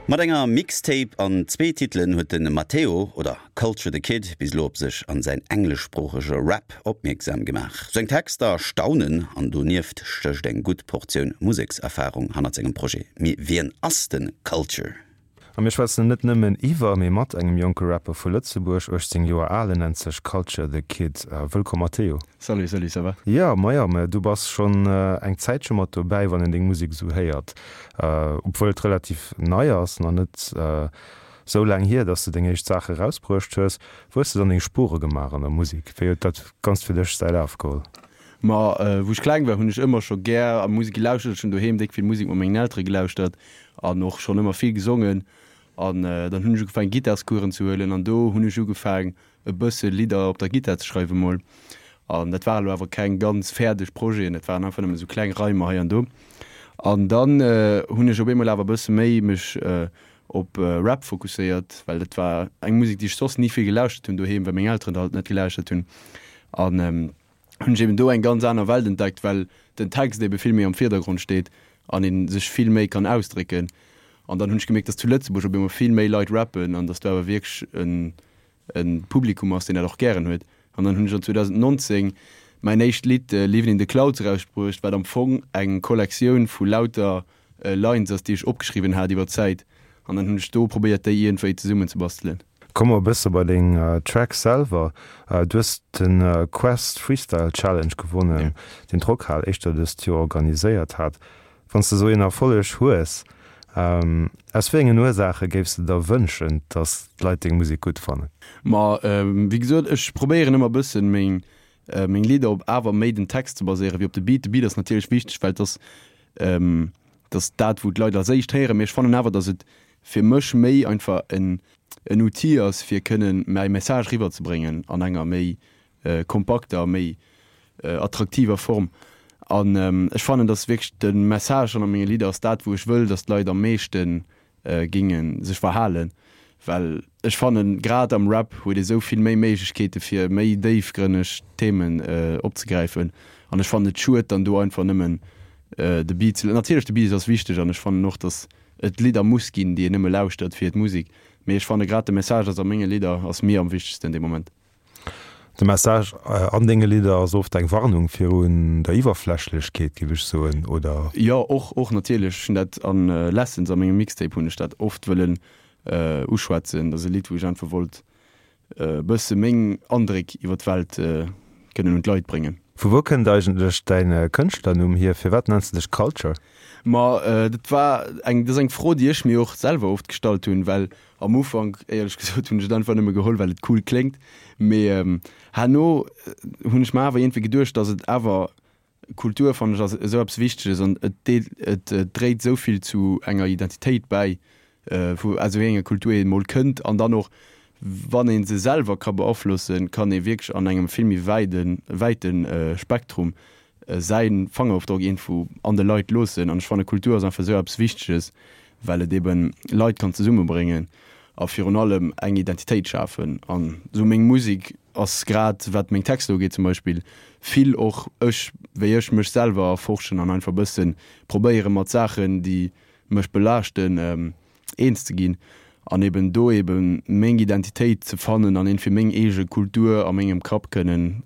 Mat enger Mixtape an zwee Titelen huet de Matteo, oder Culture the Kid, bis elo op sech an säin engleschsproochege Rap opmierksam gemaach. Seng Texter staunen an donieft stécht eng gutt Portioun Musekserfarung hannert sengem Projet. Mee wien ass de Culture? A mir schwätzen net nëmmen iwwer, mee mat engem jonke Rapper vu Lëtzebuerg, 18 Joer al, en nennt sech Culture the Kid. Wëllkomm Matteo. Salut, salut, ça va? Jo, majo, mä du bass schonn eng Zäitche mat dobäi, wann een deng Musek esou héiert. Obwuel et relativ nei ass, nach net esou laang hier, dass de deng éischt Saache erausbruecht hues. Wou hues de dann deng Spuere gemaach an der Musek? Wéi huet dat Ganzt fir dech säi Laf geholl? Ma wou ech kleng war, hunn ech ëmmer scho gär a Musek gelauschtert. Ech hunn doheem déck vill Musek mat mengen Eltere gelauschtert an och schonn ëmmer vill gesongen. An dann hunn ech ugefaangen Gittarscoursen ze huelen an do hunn ech ugefaang e bësse Lidder op der Gittar ze schreiwe mol. An dat waren elo awer keng ganz fäerdeg Projeten, dat waren einfach nëmmen esou kleng Reimer hei an do. An dann hunn ech op eemol awer e bësse méi mech op Rap fokusséiert, well dat war eng Musek, déi ech soss ni vill gelauschtert hunn doheem, well meng Elteren dat halt net gelauschtert hunn. An hunn ech eben do eng ganz aner Welt entdeckt, well den Text ebe vill méi am Virdergrond steet an ee sech vill méi kann ausdrécken. An dann hunn ech gemierkt, dass zu Lëtzebuerg op eemol vill méi Leit rappen an dass do awer wierklech en e Publikum ass, deen dat och gären huet. An dann hunn ech an 2019 mäin éischt Lidd Livin' in the Clouds erausbruecht, wat am Fong eng Kollektioun vu lauter Lines ass, déi ech opgeschriwwen hat iwwer d'Zäit. An dann hunn ech do probéiert, déi iergendwéi zesummenzebastelen. Komme mer e bësse bei deng Tracks selwer. Du hues de Quest Freestyle Challenge gewonnen, deen d'Rockhal éischter dëst Joer organiséiert hat. Wann s de esou een Erfolleg hues, aus wéi engen Ursaache géifs de der wënschen, datt d'Leit deng Musek gutt fannen? Ma wéi gesot, ech probéieren ëmmer e bëssen meng meng Lidder op awer méi den Text ze baséieren wéi op de Beat. De Beat ass natierlech wichteg, well et ass et ass dat wou d'Leit als éischt héieren, mee ech fannen awer, datt et fir mech méi einfach en en Outil ass fir kënnen mäi Message riwwerzebréngen an enger méi kompakter, méi attraktiver Form. An ech fannen, dass wierklech de Message an a menge Lidder ass dat, wou ech wëll, dass d'Leit am meeschte géinge sech verhalen. Well ech fannen, grad am Rap huet ee sou vill méi Méiglechkeete fir méi déifgrënneg Themen opzegräifen. An ech fannen et schued, dann do einfach nëmmen de Beat ze. Natierlech, de Beat ass wichteg an ech fannen och, dass et Lidder muss ginn, déi een nëmme lauschtert fir d'Musek. Mee ech fanne grad de Message ass a menge Lidder ass mir am wichtegsten dee Moment. De Message an denge Lidder ass oft eng Warnung virun der Iwwerflächlechkeet, géif ech soen, oder? Jo, och, och natierlech. Ech hunn dat an Lessons, a mengem Mixtape hunn ech dat oft wëllen uschwätzen. Dat ass e Lidd, wou ech einfach wollt e bësse meng Andréck iwwer d'Welt kënnen un d'Leit bréngen. Vu wou kënnt eigentlech däin Kënschtlernumm hier? Firwat nenns de dech Culture? Ma dat war eng, dat ass eng Fro, déi ech mir och selwer oft gestallt hunn, well Am Ufank, éierlech gesot, hunn ech et einfach nëmme geholl, well et cool kléngt. Mee herno hunn ech mer awer iergendwéi geduecht, datt et awer, Kultur fannen ech ass esou eppes Wichteges an et deelt, et dréit esou vill zu enger Identitéit bäi, vu aus wéi enger Kultur een emol kënnt. An dann och, wann ee se selwer ka beaflossen, kann ee wierklech an engem vill méi wäiden, wäite Spektrum säi Fangerofdrock iergendwou an de Leit loossen. An ech fanne Kultur ass einfach esou eppes Wichteges, well et eben Leit kann zesummebréngen a virun allem eng Identitéit schafen. An esou meng Musek ass grad wat meng Texter ugeet zum Beispill vill och ech, wéi ech mech selwer erforschen an einfach e bësse probéiere mat Saachen, déi mech belaaschten, eens ze ginn an eben do eben meng Identitéit ze fannen an iergendwéi meng eege Kultur a mengem Kapp kënnen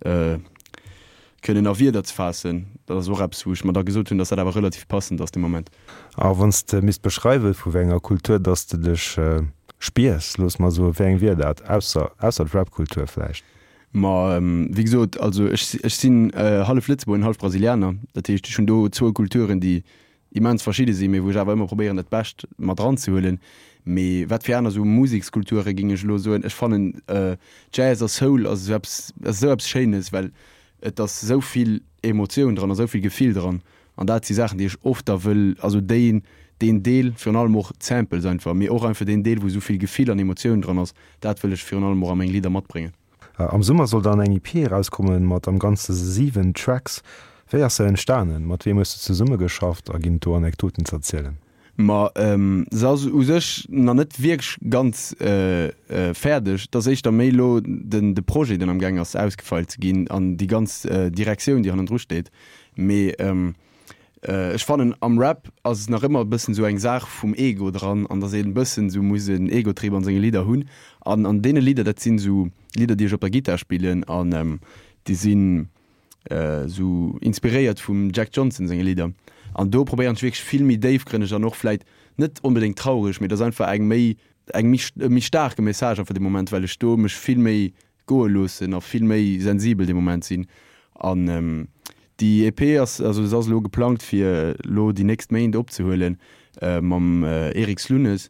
kënnen a Wierder ze faassen. Dat ass och eppes, wou ech mer da gesot hunn, dass dat awer relativ passend ass de Moment. A wann s de misst beschreiwen, vu wéi enger Kultur dass de dech spiers, looss mer soen, wéi eng wier dat, ausser ausser d'Rap-Kultur vläicht? Ma wéi gesot, also ech ech sinn hallef Lëtzebuerger an hallef Brasilianer. Dat heescht, ech hunn do zwou Kulturen, déi immens verschidde sinn, mee wou ech awer ëmmer probéieren dat Bescht mat eranzehuelen. Mee wat fir aner esou Musekskulture géing ech elo soen, ech fannen Jazz a Soul ass esou eppes, ass esou eppes Schéines, well et ass esou vill Emotioun dran a esou vill Gefill dran an dat si Saachen déi ech oft da wëll, also déi deen Deel, virun allem och d'Samples einfach, mee och einfach deen Deel wou esou vill Gefill an Emotioun dran ass, dat wëll ech virun allem och a meng Lidder matbréngen. Am Summer soll dann eng EP erauskommen mat am Ganze 7 Tracks. Wéi ass se entstanen? Mat weem hues de zesummegeschafft a ginn et do Anekdoten z'erzielen? Ma se ass u sech nach net wierklech ganz fäerdeg. Et ass éischter méi elo den de Projet, deen amgaang ass ausgefeilt ze ginn an déi ganz Direktioun, déi hannendru steet. Mee. Ech fannen am Rap ass nach ëmmer e bëssen esou eng Saach vum Ego dran an dass een e bëssen esou muss en Egotrip an senge Lidder hunn. An an deene Lidder, dat sinn esou Lidder déi ech op der Gittar spillen an déi sinn esou inspiréiert vum Jack Johnson senge Lidder. An do probéieren ech wierklech vill méi déifgrënneg an och vläit net onbedéngt traureg, mee et ass einfach eng méi eng méi e méi staarke Message einfach dee Moment, well ech do mech vill méi goe loossen a vill méi sensibel dee Moment sinn. An déi EP ass, also se ass elo geplangt fir elo déi nächst Méint opzehuelen mam Eric Slunes.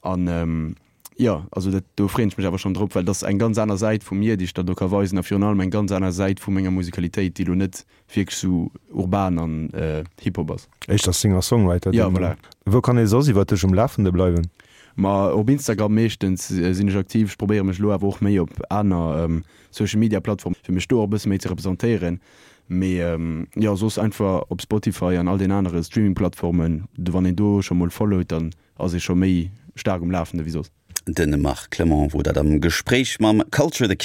An jo, also dat, do freeën ech mech awer schonn drop, well dat ass eng ganz aner Säit vu mir, déi ech dann do ka weisen a virun allem eng ganz aner Säit vu menger Musikalitéit, déi elo net wierklech sou urban an Hip-Hop ass. Éischter Singer-Songwriter. Jo, voilà. Wou kann ee soss iwwer dech um Lafende bleiwen? Ma op Instagram meeschtens sinn ech aktiv. Ech probéiere mech elo awer och méi op aner Social Media Plattformen, fir mech do och e bësse méi ze representéieren. Mee jo, soss einfach op Spotify an all den anere Streaming Plattformen. Wann een do scho mol followt, dann ass ee scho méi staark um Lafende wéi soss. De Marc Clement wor dat am Gespréich mam Culture the Kid.